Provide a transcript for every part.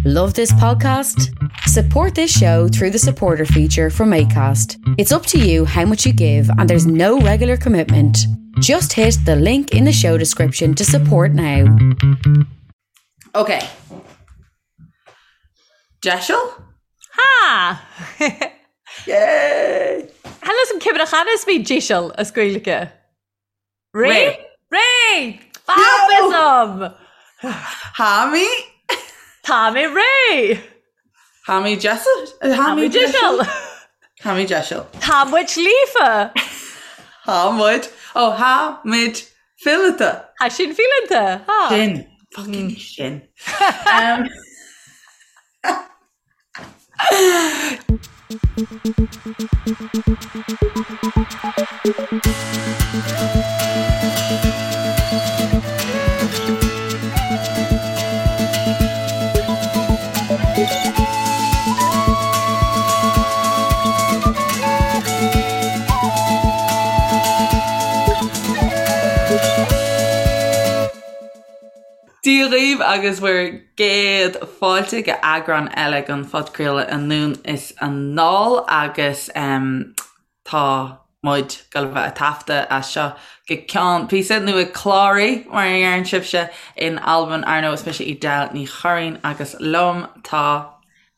Love this podcast? Support this show through the supporter feature from ACAST. It's up to you how much you give, and there's no regular commitment. Just hit the link in the show description to support now. Ok. Deiseal? Ha! Yay! Chan fhios a'm ciamar a chan as mi deiseal as Gaeilge. Ré? Ré! Fab Yo! Tha mi? Tá mé réidh! Tha mi deiseal? Tha mi deiseal! Tha mi deiseal. Tá muid líofa! Tá muid. Ó, tha muid fileata. Tha sinn fileanta. Tá. Sin. Fucking sin. Dia dhaoibh agus bhur gcéad fáilte go eagrán eile den phodchraoladh Anonn is Anall agus tá muid ag dul a bheith ag taifeadadh as seo go ceann píosa, nó ag cláraí mar a dheireann sibhse in Albain. Ar ndóigh is mise Edel Ní Churraoin agus liom tá.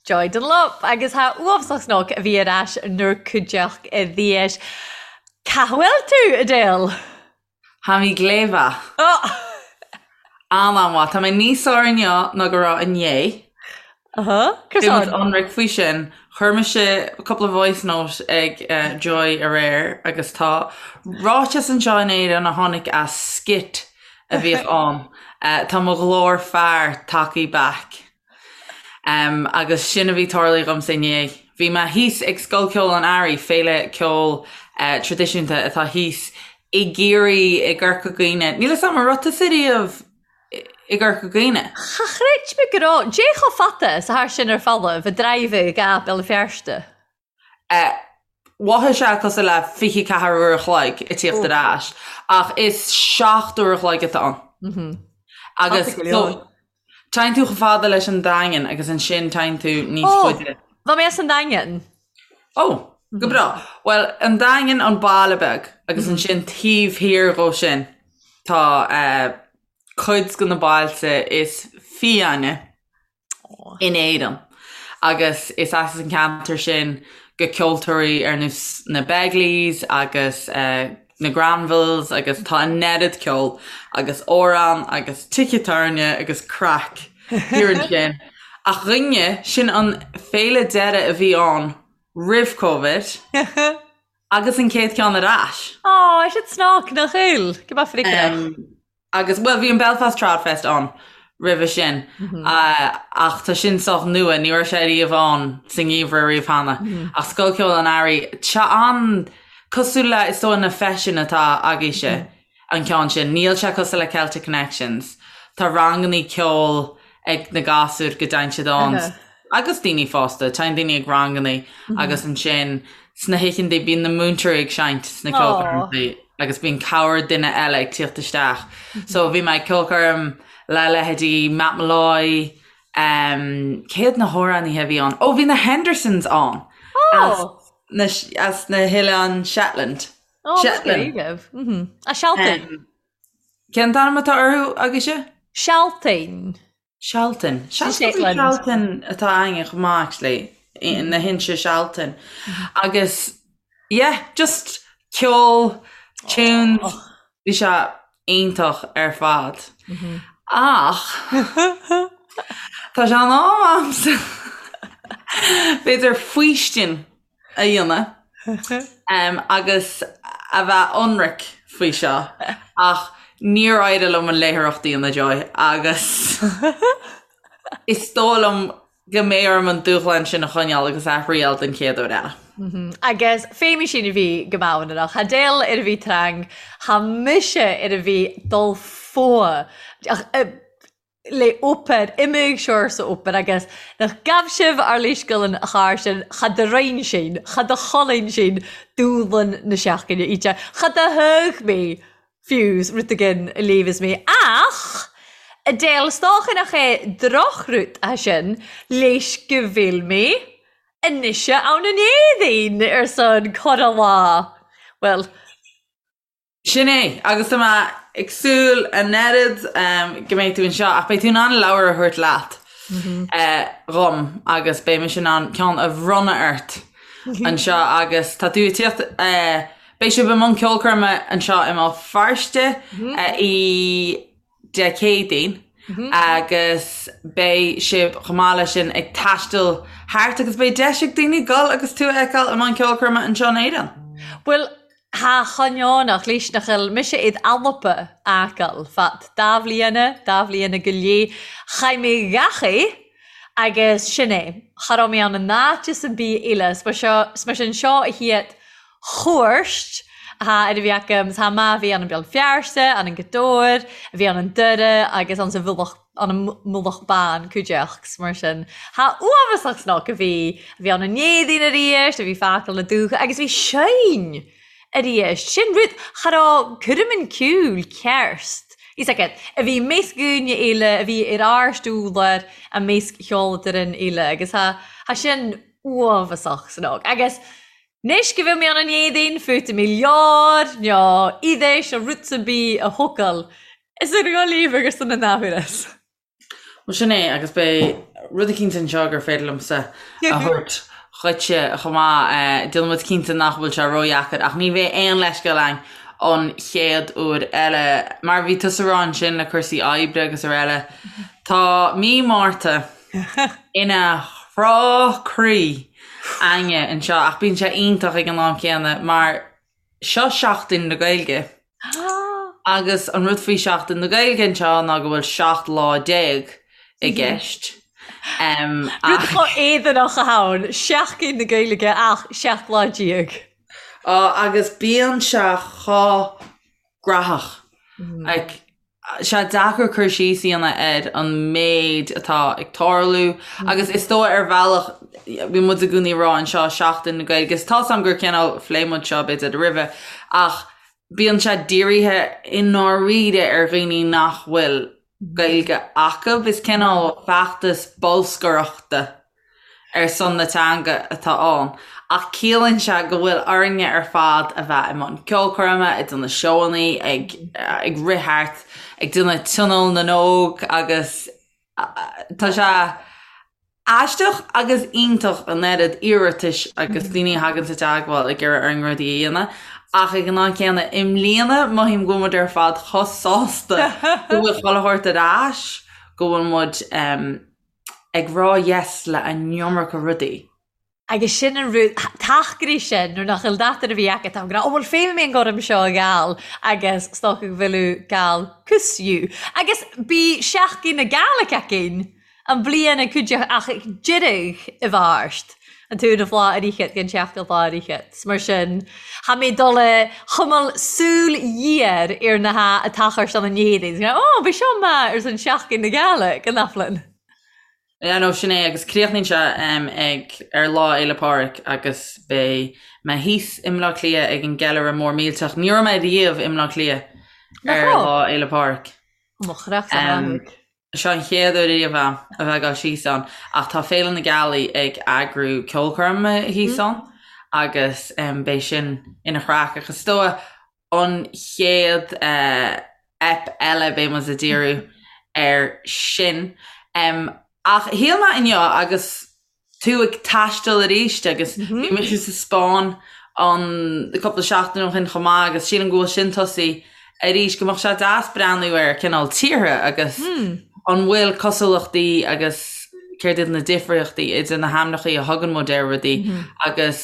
Joy Dunlop agus tha uabhsach snug a bhith air ais 'nur cuideachd a dheis. Ca bhfuil tú, Edel? Tha mi glè mhath. An-an-mhaith. Tá mé níos fearr inniu ná go raibh inné. Beidh muid ionraic faoi sin. Chuir mise cúpla voice note ag Joy aréir agus tá ráiteas anseo in Éirinn a tháinig as skit a bhíodh ann. Tá mo ghlór fear tagtha back. Agus sin a bhí tarlaithe dhomsa inné. Bhí mé thíos ag Scoil Ceoil an Earraigh, féile ceoil traidisiúnta atá thíos i gCiarraí, i gCorca Dhuibhne. Níl 'fhios a'm an raibh tusa riamh i gCorca Dhuibhne? Cha chreid mé go raibh. Dè cho fada 's athar sin ar folamh, a drive go Béal Feirste? Mhothaigh sé cosúil le 24 uair a chloig ag tíocht ar ais, ach is 7 uair a chloig atá ann. Agus téann tú chomh fada leis an Daingean agus ansin téann tú níos faide. Bha mé as an Daingean. Ó, go breá. Bhuel, an Daingean an baile beag agus ansin taobh thiar dhó sin tá cuid de na bailte is fiáine. in Éirinn agus is as an ceantar sin go ceoltóirí ar nós na Begleys agus na Granvilles agus tá an oiread ceoil agus amhrán agus tithe tábhairne agus craic thiar ansin. Ach dh'inné, sin an féile deiridh a bhí ann roimh Covid agus an chéad ceann ar ais. Á, sin snag nach eil, go mbeadh friceach. Agus, bhuel, bhí an Belfast Tradfest ann roimhe sin, ach tá sin sách nua, ní raibh sé riamh ann sa ngeimhreadh riamh cheana. Ach Scoil Ceoil an Earraigh, tá an cosúil le, is dóigh, na feiseanna atá agaibhse, an ceann sin. Níl sé cosúil le Celtic Connections. Tá rangannaí ceoil ag na gasúir go dtéann siad ann agus daoine fásta, téann daoine ag rangannaí agus ansin sna hoícheantaí bíonn na múinteoirí ag seinnt sna ceolchoirmeacha agus bíonn corr duine eile ag tíocht isteach. So bhí mé ag ceolchoirm le leithéidí Matt Molloy, um, cé hiad na hamhránaithe a bhí ann? Ó bhí na Hendersons ann as na, as na hOileáin Shetland. Ó, Shetland. A Shealtainn. Cén t-ainm atá orthu agaibhse? Sealtainn. Sealtainn. Shetland. Sealtainn atá againne chomh maith actually, na hInse Sealtainn. Agus yeah, just ceol, tunes, bhí sé iontach ar fad. Ach tá sé in am a'msa b'fhéidir faoistin a dhéanamh agus a bheith ionraic faoi seo ach níor éirigh liom an léitheoireacht a dhéanamh Joy agus is dóigh liom go mbeidh orm an dúshlán sin a choinneáil agus a thriail den chéad uair eile. Agus fé sin a bhith gu maon ann. Tha Edel air a bhith trang, tha mise air a bhith dol fo. Le obair, imigh siar sa obair agus nach gabh sibh ár leithscéal an char sin, cha do roinn sin, cha do cholainn sin dúshlan na seachtaine íte, cha do thug mé fiús rud éigin a léamhas mé ach. Adele, 's dócha nach é drochrud é sin leis go bhfuil mé anois ann in Éirinn ar son corra lá. Bhuel. Sin é, agus tá mé ag súil an oiread go mbeidh tú anseo, ach beidh tú in ann leabhar a thabhairt leat dhom agus beidh mise in ann ceann a bhronnadh ort anseo agus tá tú ag tíocht, beidh sibh i mbun ceolchoirme anseo i mBéal Feirste i Dé Céadaoin agus beidh sibh chomh maith leis sin ag taisteal thart agus beidh deis ag daoine dul agus tú a fheiceáil i mbun ceolchoirme anseo in Éirinn. Bhuel, tha choinneánach leis nach eil mise id Alba fhàgail fad da bhliadhna, da bhliadhna gu leith. Chaith mé gach é agus sin é. Cha robh mé ann an áit am bith eile. 's mar sin seo a chiad chuairt atá ar a bhí agam. 'S tha ma bhí ann an Beal Feirste, ann an Gaoth Dobhair, a bhí ann an Doire agus ann sa Mhullach an an Mullach Bán cuideachd 's mar sin. Tha uathbhasach snoc a bhí, a bhí ann an Éadaoin aríst, a bhí fàgail na dútha agus bhí sinn aríst. Sin rud, cha robh coirmean ceoil ceart, fhios agat, a bhí measc dhaoine eile, a bhí ar ár stiúlar a measc cheoltóirí eile agus tha, tha sin uathbhasach snoc. Agus anois go bhfuil mé ann an Éadaoin, feuta mi leabhar, nó oidheis nó rud ar bith a thógáil Is ar Ghaillimh agus san an athuair. Bhuel sin é agus beidh rud eicínt anseo gur féidir liomsa a thabhairt dhuitse chomh maith. Déanfaidh muid cinnte nach bhfuil sé ródheacair ach ní bheidh aon leithscéal againn an chéad uair eile. Mar a bhí tusa a rá ansin le cúrsaí oibre agus araile, tá mí Márta ina chrá croí againne anseo ach bíonn sé iontach ag an am céanna mar Seo Seachtain na Gaeilge. Agus an rud faoi Seachtain na Gaeilge anseo ná go bhfuil 17 lá i gceist. Rud chomh éadanach atá ann, Seachtain na Gaeilge ach 17 lá. Agus bíonn sé chomh graitheach. Like, sé deacair cur síos a dhéanamh ar an méid atá ag tarlú agus is dóigh ar bhealach bíonn muid i gcónaí ag rá anseo Seachtain na Gaeilge is tá's agam gur cineál phléigh muid seo b'fhéidir roimhe ach bíonn sé dírithe i ndáiríre ar dhaoine nach bhfuil Gaeilge acu. Is cineál feachtas bolscaireachta ar son na teanga atá ann, ach ciallaíonn sé go bhfuil orainne ar fad a bheith i mbun ceolchoirme, ag déanamh seóannaí, ag ag rith thart, ag déanamh Tionól na nÓg agus tá sé aisteach agus iontach an oiread iarratais agus daoine a thagann sa teagmháil ag iarraidh orainn rudaí a dhéanamh ach ag an am céanna i mbliana mothaím go bhfuil muid ar fad chomh sásta go bhfuil chuile shórt ar ais, go bhfuil muid ag rá yes le an iomarca rudaí. Agus sin an rud, tacaire sin, nuair nach bhfuil dath ar a bhí agat, tá go, ó bhuel féadfaidh mé an gorm seo a ghabháil agus is dócha go bhfuil gabháil cus you. Agus bí Seachtain na Gaelic againn an bliain ag cuid ach ag deireadh i bhfáirt an t-uair a bhláth ar fhichead den tseachtain bhláth ar fhichead. Mar sin, tha mé dul a chumail súil ghéar ar na ha atá chur san an Éirinn. Ó, bhí seo maith ar son Seachtain na Gaelic an Aflin. Yeah no sin é agus críochnaíonn sé ag ar Lá Fhéile Pádraig agus beidh mé thíos i mBleá Cliath ag an gceiliúradh mór millteach. Ní raibh mé riamh i mBleá Cliath ar Lá Fhéile Pádraig. Mo chreach san áthach. Seo an chéad uair riamh a'm a bheith ag dul síos ann ach tá Féile na Gealaí ag eagrú ceolchoirme thíos ann agus beidh sin ina chraic ach is dóigh an chéad ep eile beidh muid ag díriú air sin. Ach shíl mé inniu agus tú ag taisteal arís agus bhí mise sa Spáinn an cúpla seachtain ó shin chomh maith agus sílim go bhfuil sin tosaithe arís go mbeadh sé deas breathnú ar cineál tíortha agus an bhfuil cosúlachtaí agus céard iad na difríochtaí idir na hainmneacha a thugann muid ar rudaí agus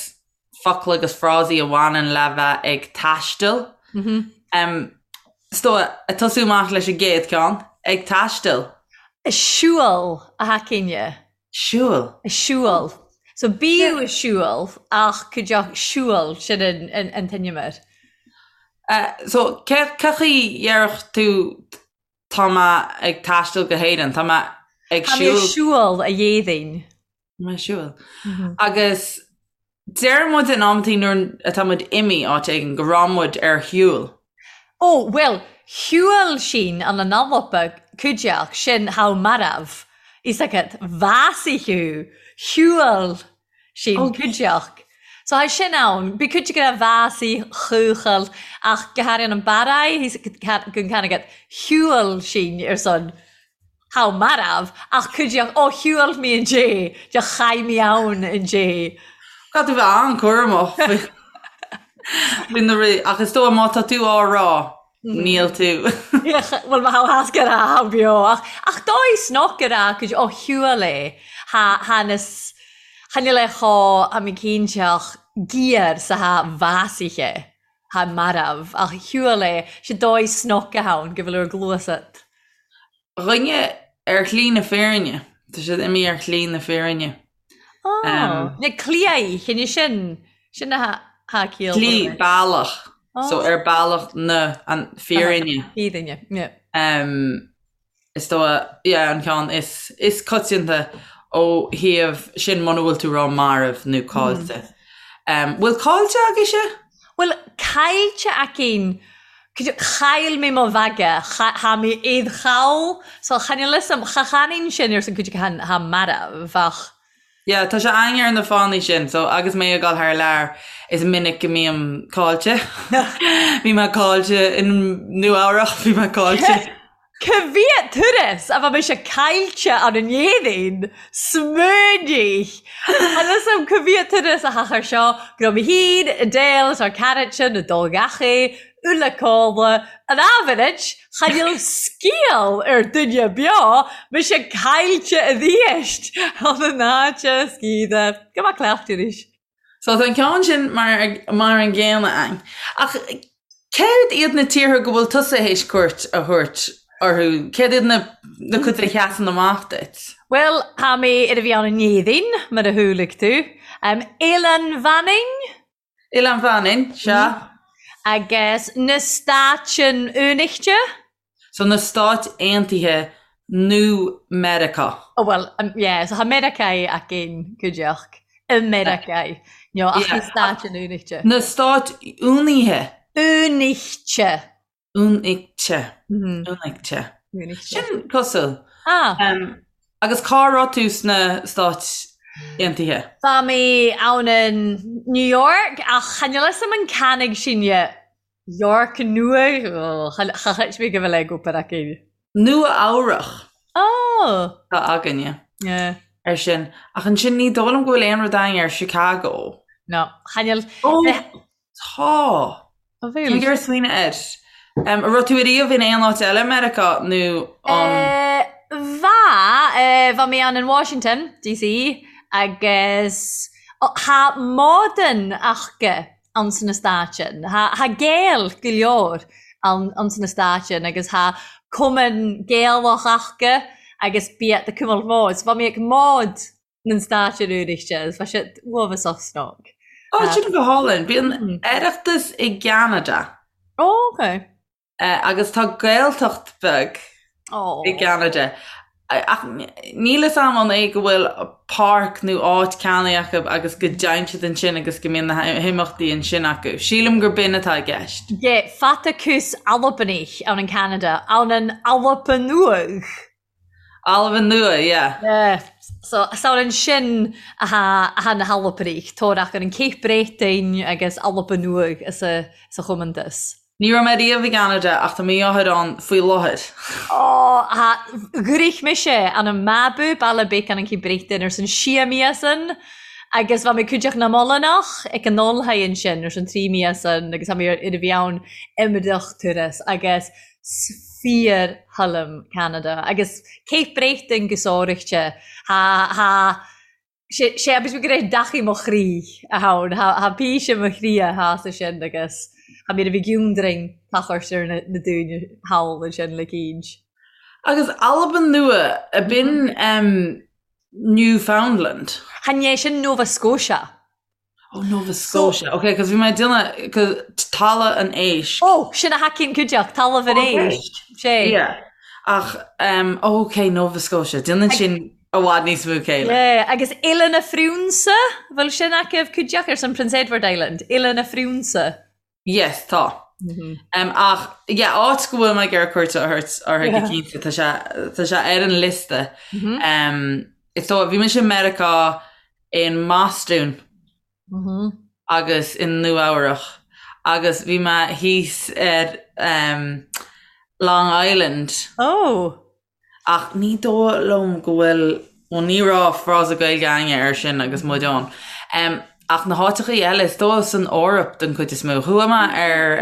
focla agus frásaí a bhaineann le bheith ag taisteal. Is dóigh, ag tosú amach leis an gcéad ceann, ag taisteal. A siúl a thacaíne. Siúl. A siúl. So bíodh a siúl ach cuideoidh siúl sin an t-ainm So cé chaoi dhéarfadh tú tá mé ag taisteal go hÉirinn, tá mé ag siúl. Tá mé ag siúl a dhéadainn. Tá mé ag siúl. Agus deir muid in amantaí nuair atá muid imithe áit éigin go raibh muid ar shiúl. Ó, bhuel, shiúil sinn an an Alba. Cuideachd, sin tha marbh, fhios agat, bhásaigh thú, shiubhal sinn cuideachd. So tha sin ann, bidh cuid ag ràdh bhásaigh, chuachaill, ach go hairithe an Barraigh, fhios gun can agat, shiubhal sinn ar son tha marbh, ach cuideachd, ó shiubhal mi an dé, de chaith mi ann an dé. Caithfidh tú bheith an-chúramach faoi na rudaí, ach is dóigh má tá tú á rá, Níl tú. Bhuel má tha go raibh beo ach ach dóigh snoc go raibh cuid ó shiúil é tha tha na cha níl é chomh tha mé cinnte ach giar sa tha bhásaithe tha marbh ach shiúil é sé dóigh snoc a ann go bhfuil ar gluas at. Dhuine ar shlí na fírinne. Tá siad imithe ar shlí na fírinne. Oh, na cliath, chinne sin, sin a tha ciall. Slí, bealach. So ar bealach na an fírinne. Fírinne, yeah. Um, is dóigh, yeah, an ceann is, is coitianta ó thaobh sin muna bhfuil tú rá marbh nó caillte. Um, bhfuil caillte agaibhse? Bhuel, caillte againn, chaill mé mo bhaga, tha mi id chall, so chan fhuil fhios a'm, cha chanann sin ar son cuid acu tha marbh ach. Yeah, tá sé againn ar na fánaí sin, so agus mé ag dul thar lear, is minic go mbím caillte. Bhí mé caillte in Nua Eabhrach, bhí mé caillte. Ca mhiad turas a bha mise caillte ann an Éirinn? Smaoinigh! Chan fhios a'm ca mhiad turas a thachair seo, go raibh mé féin, Adele 's ár caraidsean a' dol gach-aon uile codladh, an aimhirid, chan eil sgial air duine beo, mise caillte a-rìst ann an áit sgiadha. Go maith cleachtadh arís. So tá an ceann sin mar mar an gcéanna againn. Ach céard iad na tíortha go bhfuil tusa théis cuairt a thabhairt orthu? Céard iad na na cuid a sheasann amach duit? Bhuel, tha mi air a bhith ann an Éirinn, mar a chualaidh tú. Eilean Mhanainn? Oileán Mhanainn, sea. Agus na Stáitean Aonaichte? So na Stáit Aontaithe nó Meiriceá. Oh well, yeah, so tha Meiriceá againn cuideachd. I Meiriceá. No, ach na Stáitean Aonaichte. Na Stáit Aonaithe. Aonaichte. Aonaichte. Aonaichte. Aonaichte. Sin cosúil. Ah. Agus cá raibh tú sna Stáit Aontaithe? Bha mi ann in New York ach chan eil fhios a'm an canaig sinne York Nua, cha chreid mé go bhfuil ag obair againn. Nua Eabhrach. Oh! Tá againne. Yeah. Ar sin. Ach ansin ní dóigh liom go bhfuil aon rud againn ar Chicago. No, chan eil. Oh! Tá. Tá Tá mé ag iarraidh smaoineamh air. An raibh tú ariamh in aon áit eile i Meiriceá nó an. Bha, bha mi ann in Washington, DC, agus tha mòran aca ann sna Stáitean. Tha Gael go leor ann sna Stáitean agus tha cumann Gaelach aca agus bíodh ag cuimailt mòd. So bha mi ag mòd nan Stàitean Aonaichte agus bha siad uabhasach snòg. Ó, sin go hálainn. Bíonn Oireachtas i gCeanada. Ó, ok. Agus tá Gaeltacht beag i gCeanada. Ach níl fhios a'm an é go bhfuil páirc nó áit ceannaithe acu agus go dtéann siad ansin agus go mbíonn na himeachtaí ansin acu. Sílim gur b'in atá i gceist. Yeah, Fatakus Albanach ann in Ceanada, ann an Alba Nuadh. Alba Nua, yeah. Yeah. So, 's ann ansin atá na hAlbanaich, torach ar an Cape Breton agus Alba Nuadh sa chommontas. Ní raibh mé riamh i gCeanada ach tá mo dheartháir ann faoi láthair. Ó, tha, dhruich mise ann an Mabou, baile beag ann an Cape Breton ars an sia míosan agus bha mi cuideachd nam Ollannach ag an Ollthaigh ansin ars an tri míosan agus tha mi ar a bhith ann iomrach turas agus 's fíor thoilim Ceanada agus Cape Breton go sároichte. Tha, tha, sé, sé agus go raibh deachaidh mo chroí a ann, tha, tha píse mo chroí a tha sa sin agus tha mi air a bhith giúndrainn tachairt ar na, na daoine thall ansin le cinnt. Agus Albain Nua, a b'in em Newfoundland? Chan é sin Nova Scotia. Oh, Nova Scotia. Ok, cos bhí mé ag déanamh, cos Talamh an Éisc. Oh, sin a thacaíonn cuideachta, Talamh an Éisc. Sé. Yeah. Ach, um, oh, ok, Nova Scotia. Déanann sin i bhfad níos mó céille. Yeah, agus Oileán a' Phriúnsa, bhfuil sin acu cuideachta ar son Prince Edward Island, Oileán a' Phriúnsa. Yes, tá. Ach yeah, áit go bhfuil mé ag iarraidh cuairt a thabhairt uirthi go cinnte, tá sé tá sé ar an liosta. Is dóigh, bhí mise i Meiriceá i mBostún agus i Nua Eabhrach agus bhí mé thíos ar Long Island. Oh! Ach ní dóigh liom go bhfuil, bhuel ní raibh frása Gaeilge againne air sin agus muid ann. Ach na háiteachaí eile, is dóigh san Eoraip den chuid is mó. Chuaigh mé ar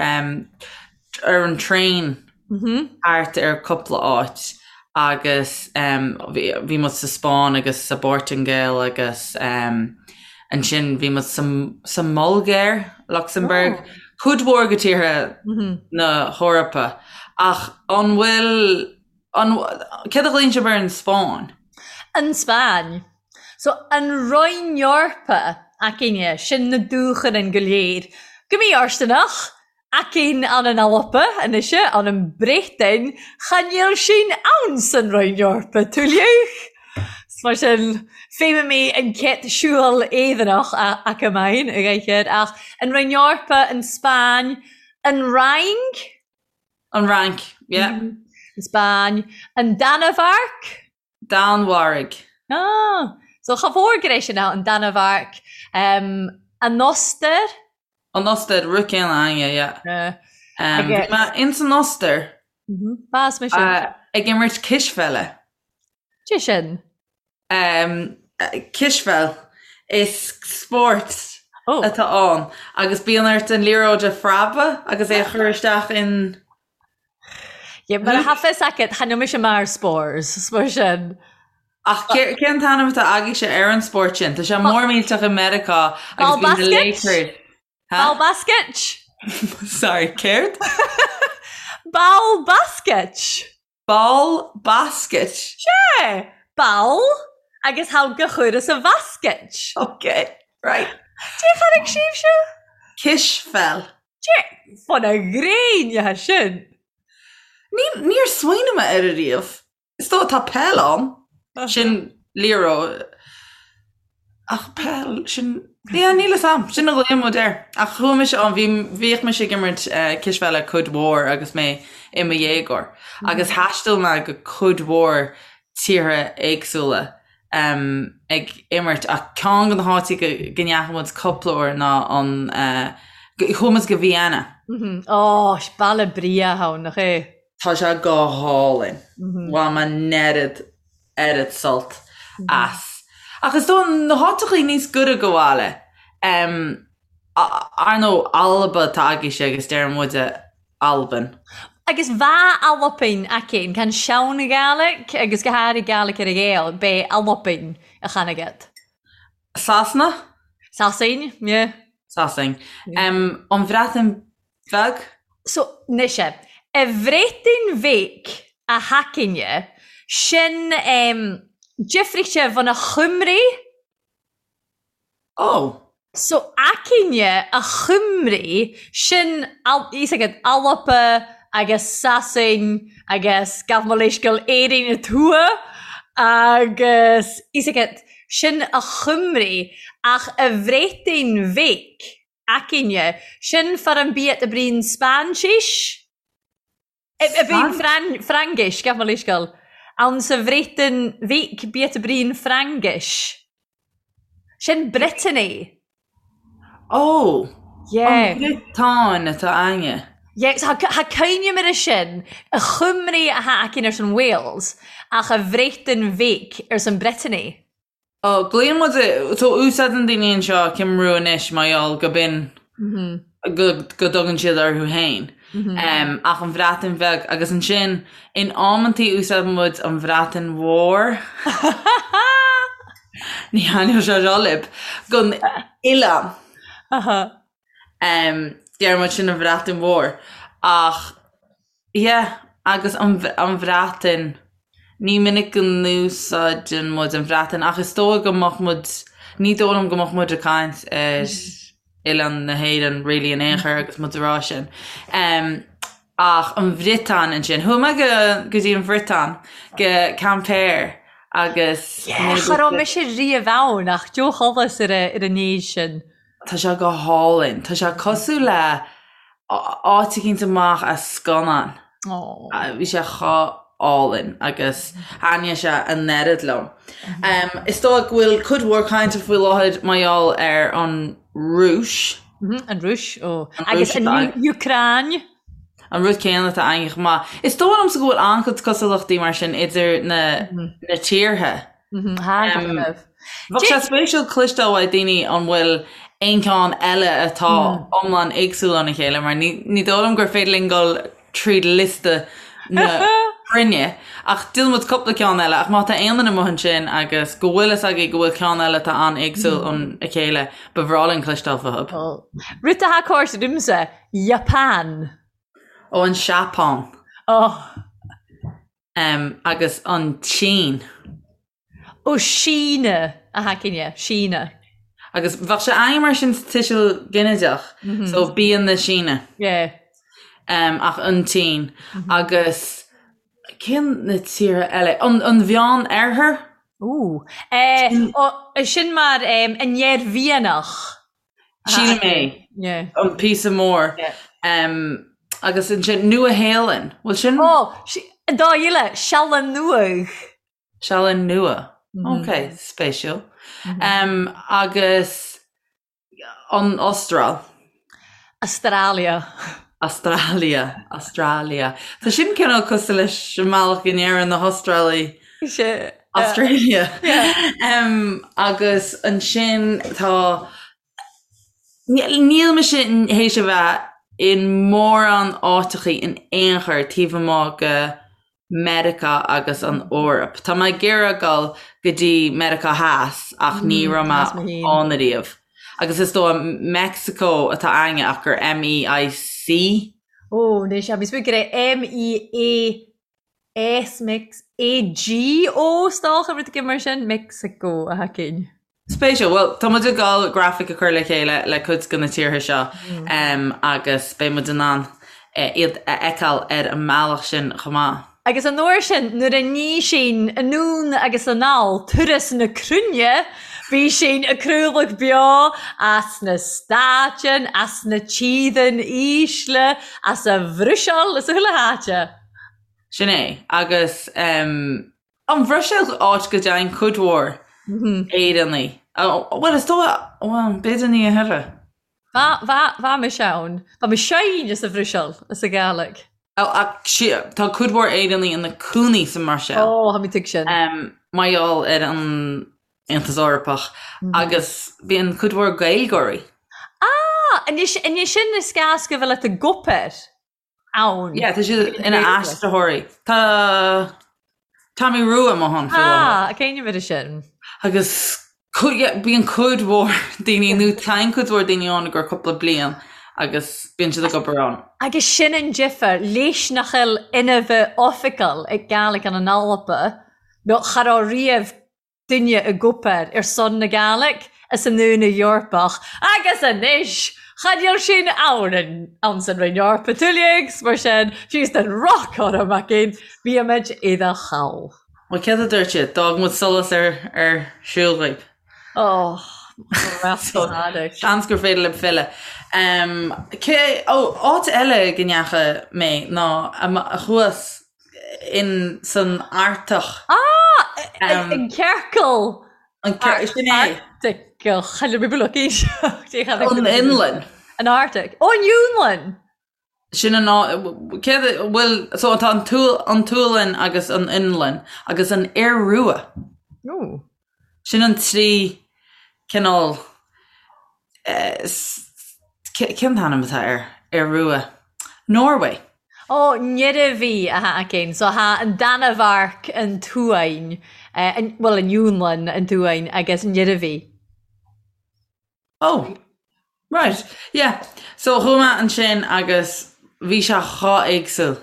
ar an traein thart ar cúpla áit agus bhí muid sa Spáinn agus sa bPortaingéil agus ansin bhí muid sa mBulgáir, Lucsamburg, cuid mhór de tíortha na hEorpa. Ach an bhfuil An, céard a ghlaonn sibh ar an Spáinn? An Spáinn. So, an Roinn Eorpa againne, sin na dúcharainn go léir. Go mí-fhóirsteanach, againn ann an Alba anois, ann an Bhreatain, cha níl sin ann san Roinn Eorpa, tuilleadh. Mar sin, feidhmidh mé an chéad siúl éireannach acu mine, a ghaidhir, ach an Roinn Eorpa, an Spáinn, an Fhrainc, An Fhrainc, yeah. An Spáinn. An Danmhairg? Danmhairg. Ah, so cha mhór go raibh sin ann, an Danmhairg. Um, an Ostair? An Ostair, rud céanna againne, yeah. Yeah. Um, bhí mé ins an Ostair. Mm-hmm. B'as mé sin. Uh, ag imirt cispheile. Cé sin? Um, cispheil. Is spórt oh. atá ann agus bíonn ort an liathróid a phreabadh agus é a chur isteach in Yeah, mar a tha fios agat, chan eil mise mar spors, mar sin. Ach cén t-ainm atá agaibhse ar an spórt sin? Tá sé mór millteach i Meiriceá agus bíonn na Lakers. Ball basket? Sorry, céard? Ball basket? Ball basket. Sé! Ball agus thall go chuireas a bhasket. Ok, right. Dé chonaic sibhse? Cispheil. Dé, fan a ghréin atá sin. Ní, níor smaoinigh mé air ariamh. Is dóigh tá peil ann. Sin liathróid. Ach peil, sin, yeah, níl fhios a'm, sin a ghlaonn muid air. Ach chuaigh mise ann, bhí, bhíodh mise ag imirt cispheile cuid mhór agus mé i mo dhéagóir. Agus thaistil mé go cuid mhór tíortha éagsúla ag imirt ach ceann de na háiteacha go, go ndeachaigh muid cúpla uair ná an, chuaigh muid go Vienna. Ó, baile breá ann, nach é? Tá sé go hálainn. Bhain mé an oiread oiread sult as. Ach is dóigh na háiteachaí níos gaire go bhaile, ar ndóigh Alba atá agaibhse agus deireann muide Albain. Agus bha Albain againn, can sean-Ghàidhlig agus go hàraidh Gàidhlig ar a Ghael, b'é Albain a chan agat. Sasana? Sasain, yeah. Sasain. An Bhreatain Bheag? So, mise, a Bhreatain Bheag a thacainne, sin em, difríochta bhun a Chymru. Oh. So, aicinne a Chymru, sin, fhios agat, Alba agus Sasain agus gabh mo leithscéal Éirinn a tuath agus, fhios agat, sin a Chymru ach a Bhreatain Bheag. Aicinne, sin far an biat a bríonn Spáinsis? A bríonn Fraingis, gabh mo leithscéal. Ann sa Bhreatain Bheag biat a bríonn Fraingis. Sin Brittany. Ó! Yeah. An Bhriotáin atá againne. Yeah, so tha cuimhne air sin, a Chymru a tha againn airson Wales, ach a Bhreatain Bheag arson Brittany. Ó, glaonn muid, so úsáideann daoine anseo Cymru anois mar gheall go b'in go go dtugann siad orthu féin. Ach an Bhreatain Bheag agus ansin in amantaí úsáideann muid an Bhreatain Mhór. Ní thaitneoidh sé seo libh. Don oileán. Deir muid sin an Bhreatain Mhór ach yeah agus an an Bhreatain ní minic go n-úsáideann muid an Bhreatain ach is dóigh go mbeadh muid ní dóigh liom go mbeadh muid ag caint ar oileán na hÉireann really in aon chor agus muid ag rá sin. Ach an Bhriotáin ansin. Chuaigh mé go go dtí an Bhriotáin go Quimper agus Yeah, cha raibh mise riamh ann ach deoch sholas ar an ar an éis sin. Tá sé go hálainn. Tá sé cosúil le. Áit eicínt amach as scannán. Bhí sé chomh álainn agus thaitnigh sé an oiread liom. Is dóigh go bhfuil cuid mhór cainte faoi láthair mar gheall ar an Rúis. An Rúis, ó. Agus an Úcráin. An rud céanna atá againn chomh maith. Is dóigh liomsa go bhfuil an-chuid cosúlachtaí mar sin idir na tíortha. Bheadh sé spéisiúil cloisteáil uaidh daoine an bhfuil aon cheann eile atá iomlán éagsúil óna chéile mar ní dóigh liom gur féidir linn dul tríd liosta na cruinne ach déanfaidh muid cúpla ceann eile ach má tá aon duine amuigh ansin agus go bhfuil fhios agaibh go bhfuil ceann eile atá an-éagsúil óna chéile ba bhreá linn cloisteáil fúthu. Rud atá cóir domsa, Japan. Ó an Seapáin. Oh. Agus an tSín. Ó Síne a thacaine, Síne. Agus bheadh sé a'm mar sin sa tuiseal ginideach, so bíonn na Síne. Yeah. Ach an tSín. Agus cén na tíortha eile? An an Mheán Oirthear? Ooh. Ó, sin mar an Iarmhianach. Sílim é. Yeah. An píosa mór. Yeah. Agus ansin Nua Shéalainn. Bhfuil sin? Ó, an dá eile, Sealainn Nuadh. Sealainn Nua. Ok, spéisiúil. Agus an Astráil. Australia. Australia, Australia. Tá sin cineál cosúil leis an mbealach go ndeireann na hAstrálaigh. Sea. Australia. Agus ansin tá, níl mise théis a bheith in mórán áiteachaí in aon chor taobh amuigh de Meiriceá agus an Eoraip. Tá mé ag iarraidh dul go dtí Meiriceá Theas ach ní raibh mé ann ariamh. Agus is dóigh Mexico atá againne ach gur M-E-I-C. Ó, anois, bhí mé ag rá M-E-A-S, Mex, A-G-O, is dócha, rud éigin mar sin, Mexico a thacainn. Spéisiúil. Bhuel, tá muid ag dul grafaic a chur le chéile le cuid de na tíortha seo agus beidh muid in ann iad a fheiceáil ar an mbealach sin chomh maith. Agus an uair sin, nuair a ní sinn anonn agus anall turas na cruinne, bhí sinn ag craoladh beo as na Stáitean, as na tíorthan ísle, as a Bhruiséil, as chuile háite. Sin é. Agus. An Bhruiséil áit go dtéann cuid mhór Éireannaigh. Bhuel, is dóigh, bhuel, b'fhéidir ní a thuilleadh. Bha mise ann. Bha mise féin sa Bhruiséil, as an Ghàidhlig. Ach tá cuid mhór Éireannaigh ina cónaí sa mBruiséil. Ó, tha mi tuig sin. Mar gheall ar an Aontas Eorpach agus bíonn cuid mhór Gaeilgeoirí. Ah! Anois, anois sin is gas go bhfuil ag obair. ann. Yeah, tá siad ina aistritheoirí. Tá Tommy Rua amuigh ann faoi láthair. Ah, cén uimhir sin? Agus bíonn cuid mhór daoine, nó téann cuid mhór daoine ann i gcomhair cúpla bliain agus bíonn siad ag obair ann. Agus sin an difear, leis nach eil inmhe oifigeil ag Gàidhlig ann an Alba, nó cha robh riamh duine ag obair ar son na Gàidhlig as an Aontas Eorpach agus anois chan eil sin ann ann san Roinn Eorpa tuilleadh 's mar sin fiú den roc orm againn bímid i do chall. Bhuel céard a dúirt siad? D'fhág muid solas ar ar siúl dhaoib. Oh, Seans gur féidir libh filleadh. Cé, ó, áit eile go ndeacha mé ná thuas in san Artach. Ah! An ciorcal! An ciorcal, sin é. Artach. An Fhionlainn. An Arctic. Ó, an Fhionlainn! Sin an áit, céard a, bhuel, so tá an an tSualainn agus an Fhionlainn agus an Iorua. Ó. Sin an trí cineál, cén t-ainm atá air? Iorua. Norway. Ó, nEirbhí atá againn. So thá an Danmhairg, an tSuain, bhuel an Fhionlainn, an tSuain agus an Iarmhí. Oh, right, yeah. So chuaigh mé ansin agus bhí sé chomh éagsúil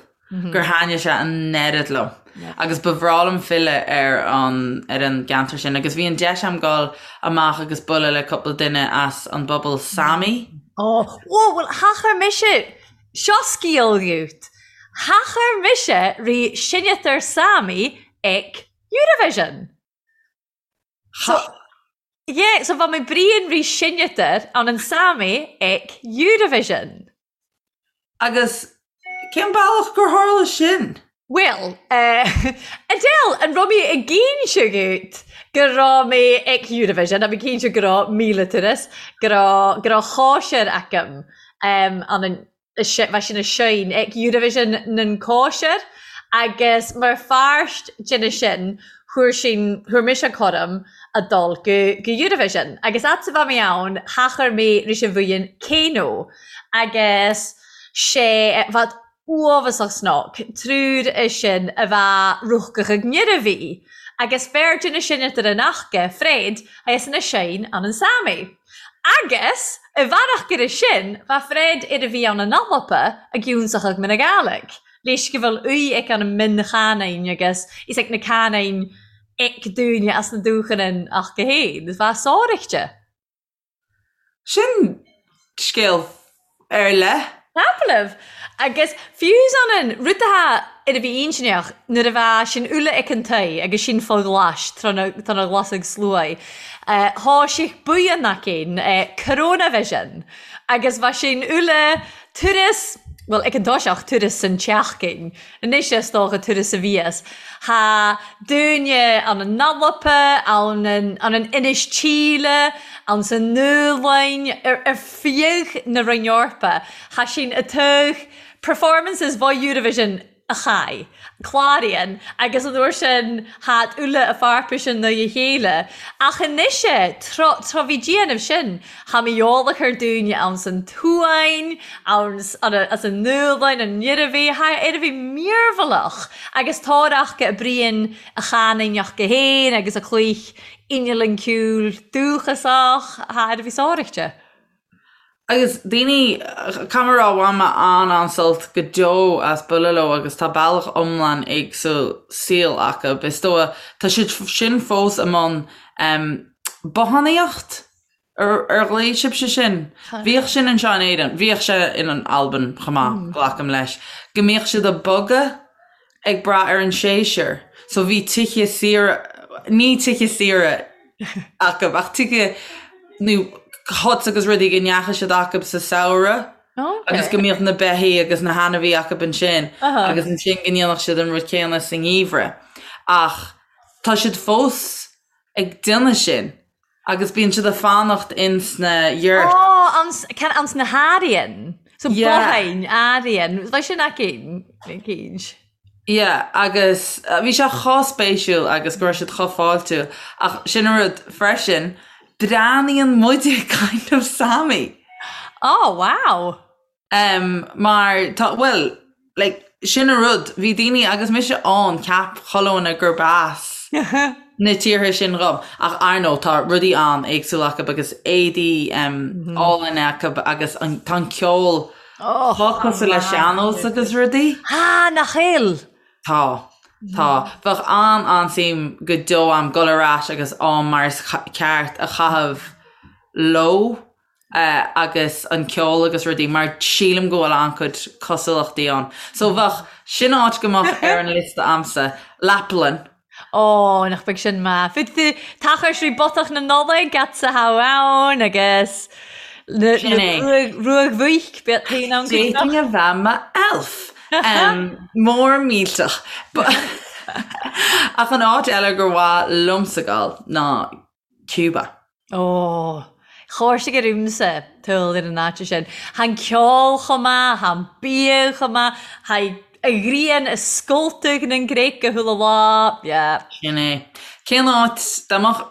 gur thaitnigh sé an oiread liom. Agus ba bhreá liom filleadh ar an, ar an gceantar sin. Agus bhí an deis a'm dul amach agus bualadh le cúpla duine as an bpobal Sami. Oh, whoa, bhuel, thachair mise, seo scéal dhuit, thachair mise ri sinneadar Sami ag Eurovision. So, yeah, so bha mi bruidhinn ri sinneadar ann an Sami ag Eurovision. Agus cén bealach gur tharla sin? Bhuel, eh, Adele, an raibh mé ag inse dhuit go raibh mé ag Eurovision, a bhí cinnte go raibh 1000 turas, go raibh, go raibh cóisir agam, em, an an, bheith sin a seinn ag Eurovision nan cóisir agus mar pháirt de sin fuair sin, fuair mise cuireadh a dul go, go Eurovision agus fhad 's a bheith mé ann thachair mé ris an bhuíon Keiino agus sé bheadh uafásach snoc, triúr é sin a bheadh rúchcach ag nIarmhí agus fear de na sin idir an aca, Fred, agus ina seinn an an Sami. Agus i bhfearach gur sin, bheadh Fred ar a bhí ann an Alba ag ionsachadh mna Gàidhlig, leis go bhfuil uí ag an min chanáin agus is ag na canáin ag dúine as na dúchanáin ach go héin, bheadh sáraíchte. Sin scéal ar leith. Tapallaibh. Agus fiú san an rud atá ar a bhí intinneach nuair a bheadh sin uile ag an tae agus sin fá ghlais tráth na tá na ghlasaigh sluaigh, thá sé buíon againn, Coronavision, agus bheadh sin uile turas, bhuel ag an toiseach, turas san tseachtain. Anois is dócha turas a bhíos. Thá daoine ann an Alba, ann an ann an Inis Tíle, ann sa Nua-Lainn, ar ar feadh na Roinn Eorpa. Thá sin a tugh performances bho Eurovision a chai, cláraíonn, agus an uair sin thá uile a pharpa sin na a chéile. Ach anois é, tráth tráth bhí déanamh sin, Thá mé eolach ar daoine ann san tSuáinn, ann as an Nua-Lainn, an Iarmhí, thá Iarmhí mearbhallach agus tárach a Brian a chanaineach go héin agus a chloich inneall an ceol dúchasach, thá Iarmhí sáraíchte. Agus daoine, caithfidh mé a rá, bhain mé an-an-sult go deo as bualadh leo agus tá bealach iomlán éagsúil saoil acu. Is dóigh, tá siad sin fós i mbun bothánaíocht? Ar ghlaoigh sibhse sin? Bhíodh sin anseo in Éirinn. Bhíodh sé in Albain chomh maith, glacaim leis. Go mbíodh siad ag bogadh ag brath ar an séasúr. So bhí tithe saoire, ní tithe saoire acu, ach tithe nó huts agus rudaí go ndeachaigh siad acu sa samhradh agus go mbíodh na beithígh agus na hainmhithe acu ansin agus ansin go ndéanfadh siad an rud céanna sa ngeimhreadh. Ach tá siad fós ag déanamh sin agus bíonn siad ag fanacht ins na yurt. Ó, ans, can, ans na hArian. So Yeah. botháin, Arian. Bheadh sin aici, cínt. Yeah, agus bhí sé chomh spéisiúil agus go raibh siad chomh fáiltiúil ach sin an rud freisin, breathnaíonn muide kind of Sami. Oh, wow. Em, mar tá, bhuel, like, sin an rud, bhí daoine, agus mise ann, cheap chuile dhuine gurb as na tíortha sin dhom, ach ar ndóigh tá rudaí an-éagsúil acu agus éadaí em, álainn acu agus an, tá an ceol Oh, chomh cosúil le sean-nós agus rudaí. Ah, nach eil! Tá. Tá. Bheadh an-an-suim go deo a'm dul ar ais agus am mar is ceart a chaitheamh leo. agus an ceol agus rudaí mar sílim go bhfuil an-chuid cosúlachtaí ann. So bheadh, sin áit go mbeadh ar an liosta a'msa, Laplainn. Ó, nach beag sin maith. Fud tú tachar srí botach na Nollag at sa thabh ann agus na Sin é. ruag bhuic, bíodh taon ann go D'fhéadfainn a bheith mo elf. Mór millteach. Ach an áit eile gur mhaith liomsa dul ná Cuba. Ó, chóirsigh ar iomsa tuil ar an áit sin. Thá an ceol chomh maith, thá an bia chomh maith, thá a ghrian a scoltadh nan gcreic go chuile lá, yeah. Sin é. Cén áit, dá mbeadh,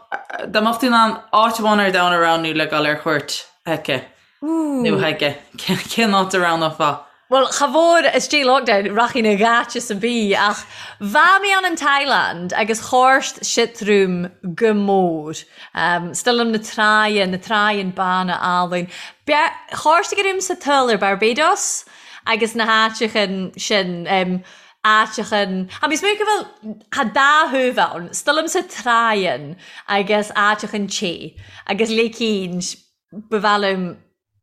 dá mbeadh tú in ann áit amháin ar domhan a roghnú le dul ar cuairt chuici, Nó chuige, cén áit a roghnófá? Bhuel, cha mhór istigh lockdown, rachainn i gcaite sa bhí, ach bha mé ann in Thailand agus chóirst sit room go mór. Still na tráighe, na tráighean bána álainn. Chóirst ag room sa tuil ar Barbados agus na háiteachan sin, áiteachan, a bhí smúch go bhfuil, tha dá thaobh ann, still sa tráighean agus áiteachan te agus léicín Ba mhaith liom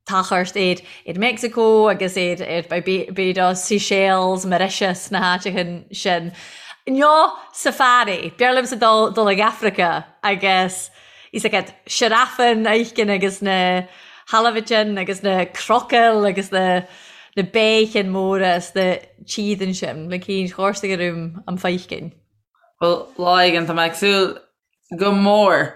tachairt ar ar Mexico agus ar ar Barbados, Seychelles, Mauritius, na háiteacha sin. Nó safari, b'fhearr liomsa dul dul ag Africa agus is ag siorafan a fheiscint agus na halabhaitin agus na crocail agus na. na béicin móra is na tídeann sin le cinn chórsaigh ar um am feicinn. Bhuel, lá éigin, tá mé ag súil go mór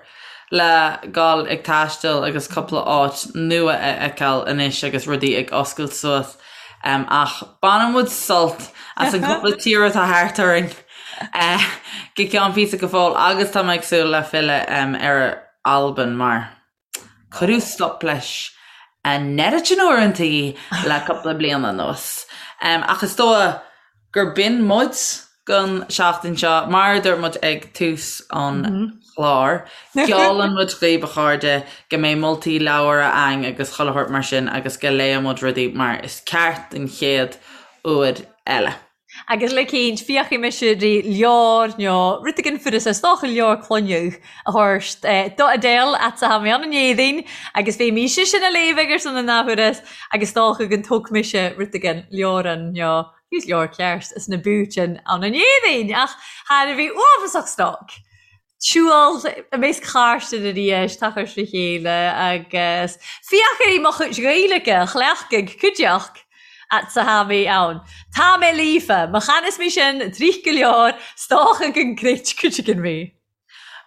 le gabháil ag taisteal agus cúpla áit nua a fheiceáil anois agus rudaí ag oscailt suas. Ach baineann muid sult as an gcúpla tír atá thart orainn go ceann píosa go fóill agus tá mé ag súil le filleadh ar Albain mar Cuireadh stop leis an oiread sin uaireantaí le cúpla bliain anuas. Ach is dóigh gur b'in muid don seachtain seo. Mar a dúirt muid ag tús an chláir, geallann muid dhaoibh, a chairde, go mbeidh moltaí leabhar a'ainn agus chuile shórt mar sin agus go léifidh muid rudaí mar is ceart den chéad uair eile. Agus le cinnt, féachfaidh mise ri leabhar nó rud éigin furas is dócha leabhar clainneadh a thabhairt do Adele at sa tha mi ann an Éadaoin agus bheidh mise sin a léamh ag ar son an athuair agus is dócha go dtóg mise rud éigin leabhrán nó fiú leabhar ceart as na búitinn ann an Éadaoin ach thar a bheith uafásach stoc. Siúl i measc chairde arís, tachairt le chéile agus féach ar mo chuid Gaeilge a chleachtadh cuideachta at sa tha mi ann. Tá mé líofa, má chanas mé sin tríth go leor, 's dócha go gcreid cuid againn mé.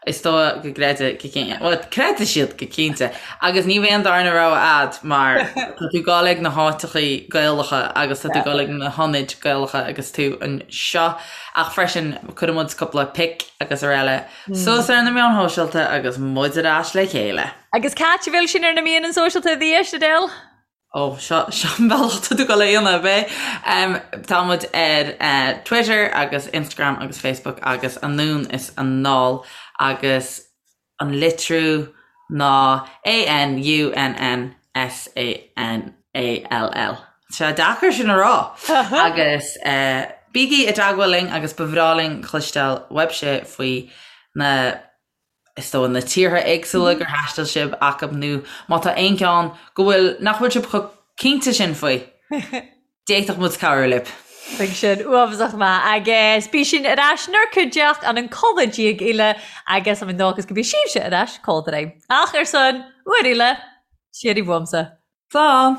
Is dóigh go gcreidfidh go cinnte. Bhuel, creidfidh siad go cinnte. Agus ní bheidh an darna rogha a'd mar tá tú ag gabháil ag na háiteachaí Gaelacha agus tá tú ag gabháil ag na hionaid Gaelacha agus tú anseo. Ach freisin, cuirfidh muid cúpla pic agus araile suas ar na meáin shóisialta agus muid ar ais le chéile. Agus c'ait a bhfuil sinn ar na meáin sóisialta arís, Adele? Ó, seo, seo an bealach tá tú ag gabháil a dhéanamh, ab é? Tá muid ar Twitter agus Instagram agus Facebook agus anonn is anall agus An litriú ná A-N-U-N-N-S-A-N-A-L-L. Tá sé deacair sin a rá! Agus bígí i dteagmháil linn agus ba bhreá linn cloisteáil uaibhse faoi na, is dóigh, na tíortha éagsúla gur thaistil sibh acub nó má tá aon cheann go bhfuil, nach bhfuil sibh chomh cinnte sin faoi. D'fhéadfadh muid cabhrú libh. Bheadh sin uafásach maith agus bí sinn ar ais 'nár cuideachd ann an codladh diaidh eile agus am ndóchas go bí sibhse ar ais codladh. Ach ar son uair eile, siar i bhfuaimsa. Slán!